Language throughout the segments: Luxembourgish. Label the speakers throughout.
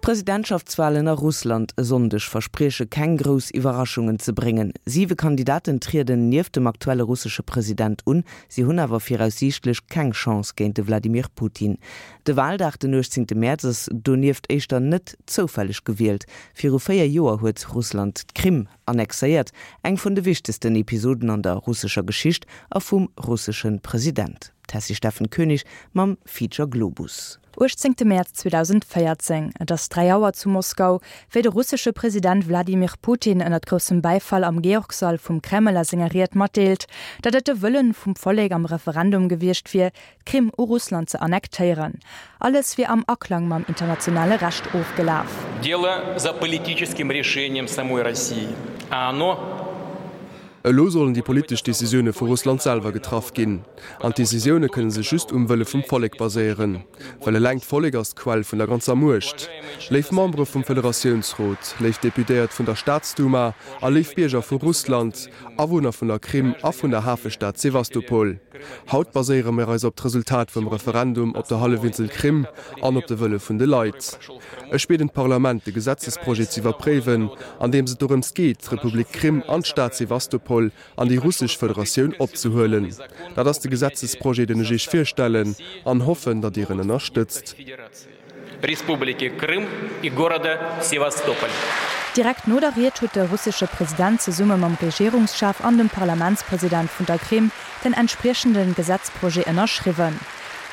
Speaker 1: D'Presidentschaftswalen a Russland e Sonndeg versprieche keng grouss Iwwerraschungen ze bréngen. Siwe Kandidaten trieden nieft dem aktuelle russesche President un. Si hunn awer viraussiichtlech keng Chance géint de Wladimir Putin. De Waldag den 18 Mäerz ass donieft éischter net zoufälleg gewielt. Viru 4 Joer huet Russland d'Krim annexéiert, eng vun de wichtegsten Episoden an der russescher Geschicht a vum russesche President. D'Tessy Steffen Koenig mam Feature Globus.
Speaker 2: 18 Mäerz 2014, Et ass 3 Auer zu Moskau, wéi de russesche President Wladimir Putin ënnert groussem Bäifall am Georgsall vum Kreml a senger Ried matdeelt, datt et de Wëllen vum Vollek am Referendum gewiescht wier, d'Krim u Russland ze annektéieren. Alles wier am Aklang mam internationale Recht ofgelaf.
Speaker 3: Дело за политическим решением самой России, а оно.
Speaker 4: Elo sollen déi politesch Decisioune vu Russland selwer getraff ginn. An d'Decisioune kënne sech just um Wëlle vum Vollek baséieren. Well eleng d'Vollek ass d'Quell vun der ganzer Muecht. Léif Membere vum Federatiounsrot, léif Deputéiert vun der Staatsduma a léif Bierger vu Russland, Awunner vun der Krim a vun der Hafestad Sewastopol, haut baséiere mir eis op d'Resultat vum Referendum op der Hallefinsel Krim an op de Wëlle vun de Leit. Ech bieden d'Parlament, de Gesetzesprojet ze iwwerpréiwen, an deems et dorëms geet, d'Republik Krim an d'Stad Sewastopol an déi Russesch Federatioun opzehuelen. Dat ass de Gesetzesprojet, den ech Iech virstellen, an hoffen, datt Dir en ënnerstëtzt.
Speaker 2: Direkt no der Ried huet de russesche President zesumme mam Regierungschef an dem Parlamentspresident vun der Krim den entspriechende Gesetzprojet ënnerschriwwen.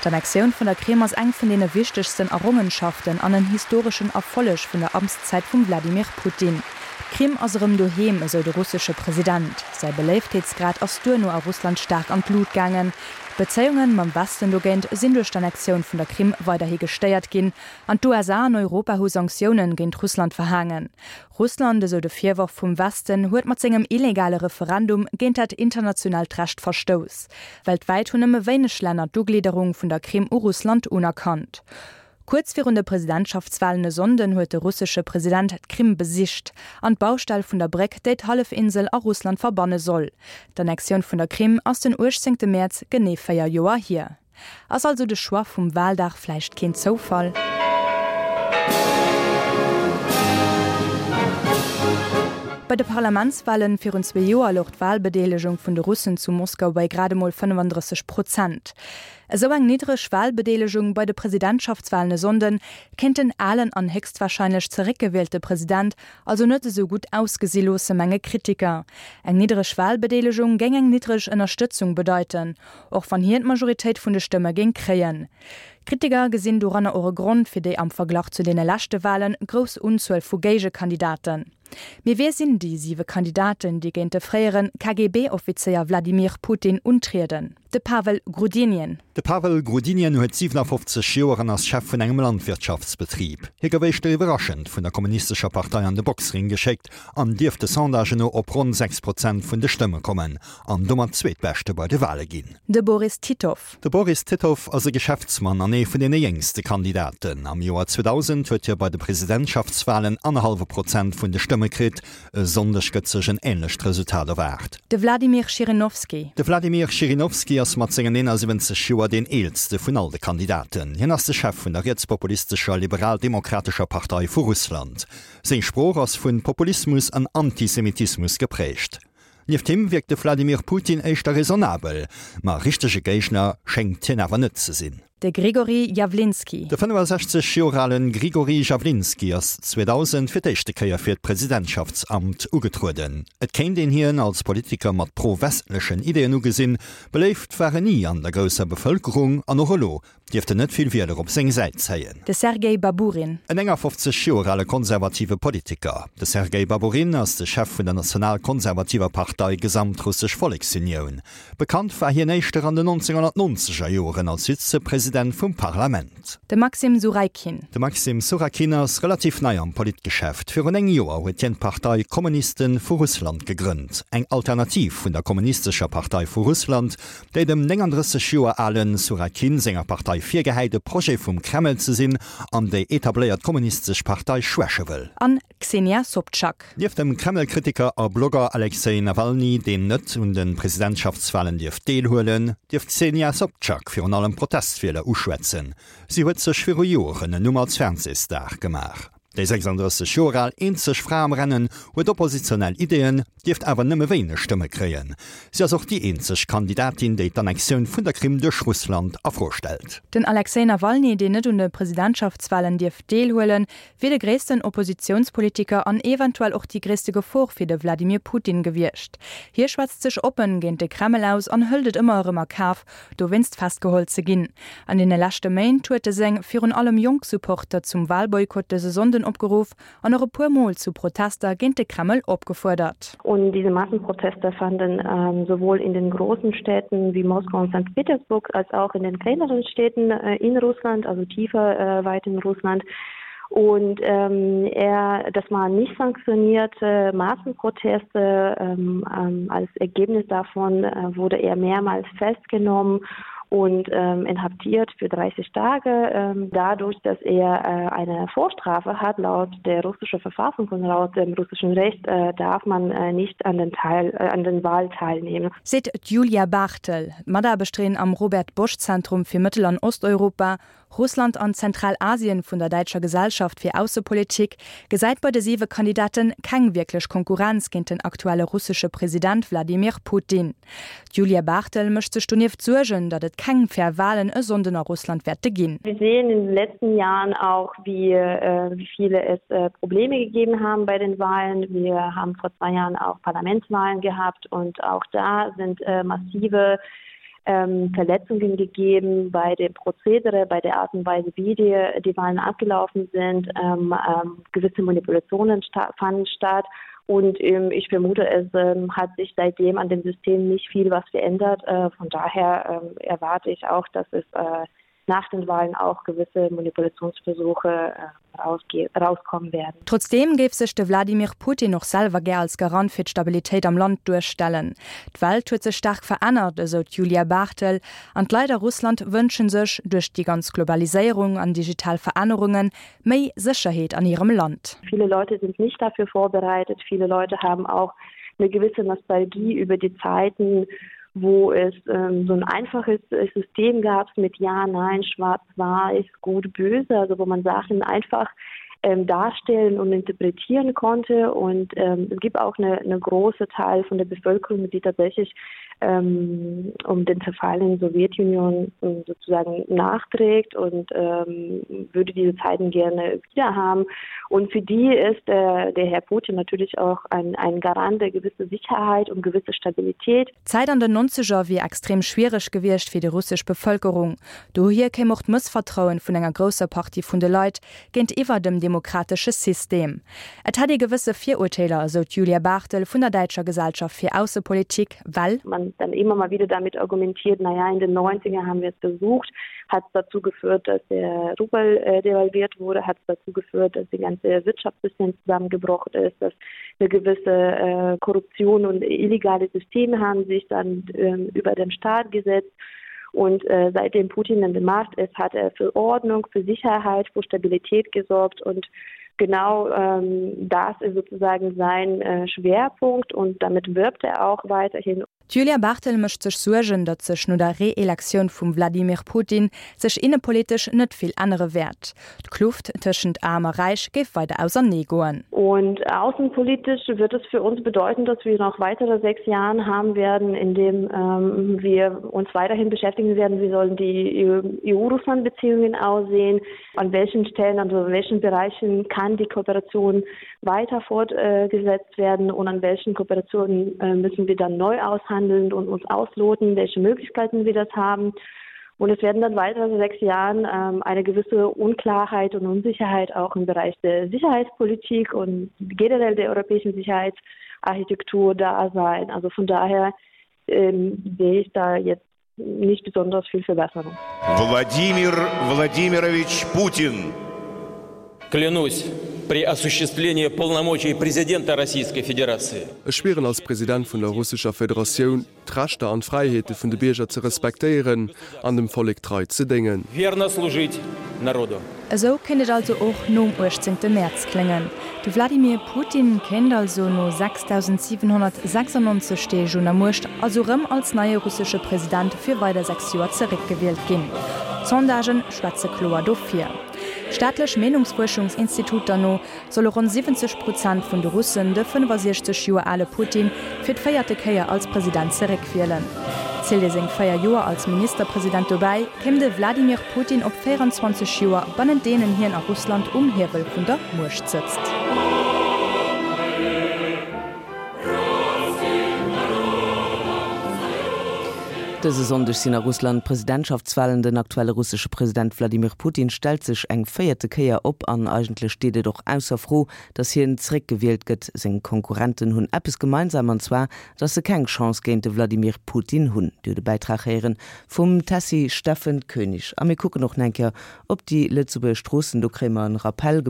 Speaker 2: D'Annexioun vun der Krim ass eng vun deene wichtegsten Errongenschaften an en historeschen Erfolleg vun der Amtszäit vum Wladimir Putin. D'Krim ass erëm doheem, esou de russesche President. Säi Beléiftheetsgrad ass duerno a Russland staark an d'Lut gaangen. D'Bezéiunge mam Westen dogéint sinn duerch d'Annexioun vun der Krim weiderhi gestéiert ginn an d'USA an Europa hu Sanktioune géint Russland verhaangen. Russland, esou de Virworf vum Westen, huet mat sengem illegale Referendum géint dat internationaalt Recht verstouss. Weltwäit hunn nëmme wéineg Länner d'Uglidderung vun der Krim u Russland unerkannt. Kuerz virun de Presidentschaftswalen e Sonnden huet de russesche President d'Krim besicht an d'Baustell vun der Bréck, déi d'Hallefinsel a Russland verbanne soll. D'Annexioun vun der Krim ass den 18 Mäerz genee 4 Joer hier. Ass also de Choix vum Wahldag vläicht keen Zoufall? Bei de Parlamentswahlen virun zwee Joer louch d'Wahlbedeelegung vun de Russen zu Moskau bei grad emol 35 Prozent. Esou eng niddreg Wahlbedeelegung bei de Presidentschaftswahlen e Sonnden kéint den alen an héchstwahrscheinlech zeréckgewielte President also net esou gutt ausgesi loosse, menge Kritiker. Eng niddreg Wahlbedeelegung géing eng niddreg Ënnerstëtzung bedeiten. Och wann hien d'Majoritéit vun de Stëmme géing kréien. Kritiker gesinn doranner och e Grond fir déi am Verglach zu deene leschte Wale grouss Unzuel vu Géigekandidaten. Mee wie sinn déi siwe Kandidaten, déi géint de fréiere KGB-Offizéier Wladimir Putin untrieden? De Pavel Grudinin.
Speaker 5: De Pavel Grudinin huet 57 Joer an ass Chef vun engem Landwirtschaftsbetrib. Hie gouf éischter iwwerraschend vun der kommunistescher Partei an de Boxring geschéckt an dierft de Sondagen no op ronn 6 Prozent vun de Stëmme kommen. An domat Zweetbeschte bei de Wale ginn.
Speaker 2: De Boris Titov.
Speaker 5: De Boris Titov ass e Geschäftsmann an ee vun deene jéngste Kandidaten. Am Joer 2000 huet hie bei de Presidentschaftswalen annerhallwe Prozent vun de Stëmme kritt. E Sonndeg gëtt sech en änlecht Resultat erwaart.
Speaker 2: De Wladimir Schirinowski.
Speaker 5: De Wladimir Schirinowski ass mat sengen 71 Joer deen eelste vun all de Kandidaten. Hien ass de Chef vun der rietspopulistescher Liberal-Demokratescher Partei vu Russland. Seng Sprooch ass vu Populismus an Antisemitismus geprägt. Nieft him wierkt de Vladimir Putin éischter raisonnabel, ma richtege Géigner schéngt hien awer net ze sinn.
Speaker 2: De Grigori Jawlinski.
Speaker 5: De 65 Joer ale Grigori Jawlinski ass 2000 fir d'éischte Kéier fir d'Presidentschaftsamt ugetrueden. Et kéint een hien als Politiker mat pro-westlechen Ideeën ugesinn. Beléift war en ni an der grousser Bevëlkerung an och elo dierft en net vill Wieler op seng Säit zéien.
Speaker 2: De Sergei Baburin.
Speaker 5: En 51 Joer ale konservative Politiker. De Sergei Baburin ass de Chef vun der national-konservativer Partei Gesamtrussesch Volleksunioun. Bekannt war hien éischter an den 1990er Joeren als Vizepresident vum Parlament.
Speaker 2: De Maxim Suraikin.
Speaker 5: De Maxim Surakin ass relativ nei am Politgeschäft. Virun 9 Joer huet hien d'Partei Kommuniste vu Russland gegrënnt, eng Alternativ vun der Kommunistescher Partei vu Russland, déi dem 39 Joer ale Surakin senger Partei virgehäit, e Projet vum Kreml ze sinn an déi etabléiert kommunistesch Partei schwäche wëll.
Speaker 2: An Xenia Sobtschak.
Speaker 5: Nieft dem Kreml-Kritiker a Blogger Alexej Nawalny, deen net un de Presidentschaftswalen dierf deelhuelen, dierf d'Xenia Sobtschak virun allem Protestwieler uschwätzen. Si huet sech viru Joren en Numm als Fernsehstar gemaach. Déi 36 Joer al eenzeg Fra am Rennen huet oppositionell Ideeën, dierft awer nëmme wéineg Stëmme kréien. Si ass och déi eenzeg Kandidatin, déi d'Annexioun vun der Krim duerch Russland a Fro stellt.
Speaker 2: Den Alexej Nawalny, deen net un de Presidentschaftswalen dierf deelhuelen, wier de gréissten Oppositiounspolitiker an eventuell och déi gréisste Gefor fir de Wladimir Putin gewiescht. Hie schwätzt sech oppen géint de Kreml aus an hëlt et ëmmer erëm a Kaf, dowéinst festgeholl ze ginn. An deene leschte Méint huet e seng virun allem jonk Supporter zum Walboykott dëse Sonnden opgeruff an och e puer Mol zu Protester géint de Kreml opgefuerdert.
Speaker 6: Und diese Massenproteste fanden sowohl in den großen Städten wie Moskau und Sankt Petersburg als auch in den kleineren Städten in Russland, also tiefer weit in Russland. Und ähm, er, das waren nicht sanktionierte Massenproteste. Ähm, ähm, als Ergebnis davon äh, wurde er mehrmals festgenommen und ähm, inhaftiert für 30 Tage. Ähm, dadurch, dass er äh, eine Vorstrafe hat laut der russischen Verfassung und laut dem russischen Recht äh, darf man äh, nicht an den, Teil, äh, an den Wahl teilnehmen.
Speaker 2: Seet d'Julia Barthel, Mataarbechterin am Robert Bosch Zentrum fir Mëttel an Osteuropa, Russland an Zentralasien vun der Däitscher Gesellschaft fir Aussepolitik, gesäit bei de siwe Kandidate keng wierklech Konkurrenz géint den aktuelle russesche President Wladimir Putin. D'Julia Barthel mécht sech donieft Suergen, datt et keng fair Walen e Sonnden a Russland wäerte ginn.
Speaker 6: Wir sehen in den letzten Jahren auch, wie wie viele es Probleme gegeben haben bei den Wahlen. Wir haben vor zwei Jahren auch Parlamentswahlen gehabt und auch da sind massive ähm, Verletzungen gegeben bei dem Prozedere, bei der Art und Weise, wie die, die Wahlen abgelaufen sind. Ähm, ähm, gewisse Manipulationen sta fanden statt. Und ähm, ich vermute, es ähm, hat sich seitdem an dem System nicht viel was verändert. Äh, von daher ähm, erwarte ich auch, dass es äh, nach den Wahlen auch gewisse Manipulationsversuche äh, rauskommen werden.
Speaker 2: Trotzdeem géif sech de Wladimir Putin och selwer gär als Garant fir d'Stabilitéit am Land duerstellen. D'Welt huet sech staark verännert, esou d'Julia Barthel, an d'Leit a Russland wënsche sech, duerch déi ganz Globaliséierung an digital Verännerungen, méi Sécherheet an hirem Land.
Speaker 6: Viele Leute sind nicht dafür vorbereitet, viele Leute haben auch eine gewisse Nostalgie über die Zeiten, wo es ähm, so ein einfaches äh, System gab mit Ja, Nein, Schwarz, Weiß, Gut, Böse, also wo man Sachen einfach ähm, darstellen und interpretieren konnte. Und ähm, es gibt auch eine, eine große Teil von der Bevölkerung, die tatsächlich ähm, um den Zerfall in der Sowjetunion ähm, sozusagen nachträgt und ähm, würde diese Zeiten gerne wieder haben. Und für die ist äh, der Herr Putin natürlich auch ein, ein Garant der gewisse Sicherheit und gewisse Stabilität.
Speaker 2: D'Zäit an den Nonzeger wier extrem schwiereg gewiescht fir déi russesch Bevëlkerung. Dohier kéim och d'Mëssvertrauen vun enger grousser Partie vun de Leit géintiwwer dem demokratesche System. Et hätt ee gewësse Virurteeler, esou d'Julia Barthel vun der Däitscher Gesellschaft fir Aussepolitik, well.
Speaker 6: Man dann immer mal wieder damit argumentiert, na ja, in den Neunziger haben wir es versucht, hat es dazu geführt, dass der Rubel devalviert wurde, hat es dazu geführt, dass die ganze Wirtschaftssystem zusammengebrochen ist, dass eine gewisse äh, Korruption und illegale Systeme haben sich dann ähm, über den Staat gesetzt. Und äh, seitdem Putin an der Macht ist, hat er für Ordnung, für Sicherheit, für Stabilität gesorgt und genau ähm, das ist sozusagen sein äh, Schwerpunkt und damit wirbt er auch weiterhin.
Speaker 2: D'Julia Barthel mécht sech Suergen, datt sech no der Reelektioun vum Wladimir Putin sech innepolitesch net vill ännere wäert. D'Kluft tëschent Aarm a Räich géif weider ausernee goen.
Speaker 6: Und außenpolitisch wird es für uns bedeuten, dass wir noch weitere sechs Jahren haben werden, in dem ähm, wir uns weiterhin beschäftigen werden, wie sollen die EU-Russland-Beziehungen aussehen, an welchen Stellen, also in welchen Bereichen kann die Kooperation weiter fortgesetzt werden und an welchen Kooperationen äh, müssen wir dann neu aushandeln und uns ausloten, welche Möglichkeiten wir das haben. Und es werden dann weitere sechs Jahren ähm, eine gewisse Unklarheit und Unsicherheit auch im Bereich der Sicherheitspolitik und generell der europäischen Sicherheitsarchitektur da sein. Also von daher ähm, sehe ich da jetzt nicht besonders viel Verbesserung.
Speaker 7: Владимир Владимирович Путин.
Speaker 3: Клянусь при осуществлении полномочий президента Российской Федерации.
Speaker 4: Ech schwieren als President vun der Russescher Federatioun, d'Rechter an d'Fräiheete vun de Bierger ze respektéieren an dem Vollek trei ze déngen.
Speaker 3: Верно служить народу.
Speaker 2: Esou kéint et also och nom 18 Mäerz kléngen. De Wladimir Putin kéint also no 6.796 Deeg un der Muecht also rëm als neie russesche President fir weider 6 Joer zeréckgewielt ginn. D'Sondagen schwätze kloer dofir. Staatlech Meenungsfuerschungsinstituter no solle ronn 70 Prozent vun de Russen de 65 Joer ale Putin fir d'véierte Kéier als President zeréckwielen. Zielt ee seng 4 Joer als Ministerpresident dobäi, kéim de Wladimir Putin op 24 Joer, bannent deenen hien a Russland um Hiewel vun der Muecht sëtzt.
Speaker 1: Dëse Sonndeg sinn a Russland d'Presidentschaftswalen. Den aktuelle russesche President Wladimir Putin stellt sech eng véierte Kéier op an eigentlech steet et och ausser Fro, datt hien zeréckgewielt gëtt. Seng Konkurrenten hunn eppes gemeinsam an zwar, datt se keng Chance géint de Wladimir Putin hunn. Dir hutt e Bäitrag héieren vum Tessy Steffen Koenig. A mir kucken och nach eng Kéier op déi Lëtzebuerger Stroossen. Do kréie mer en Rappel gemaach.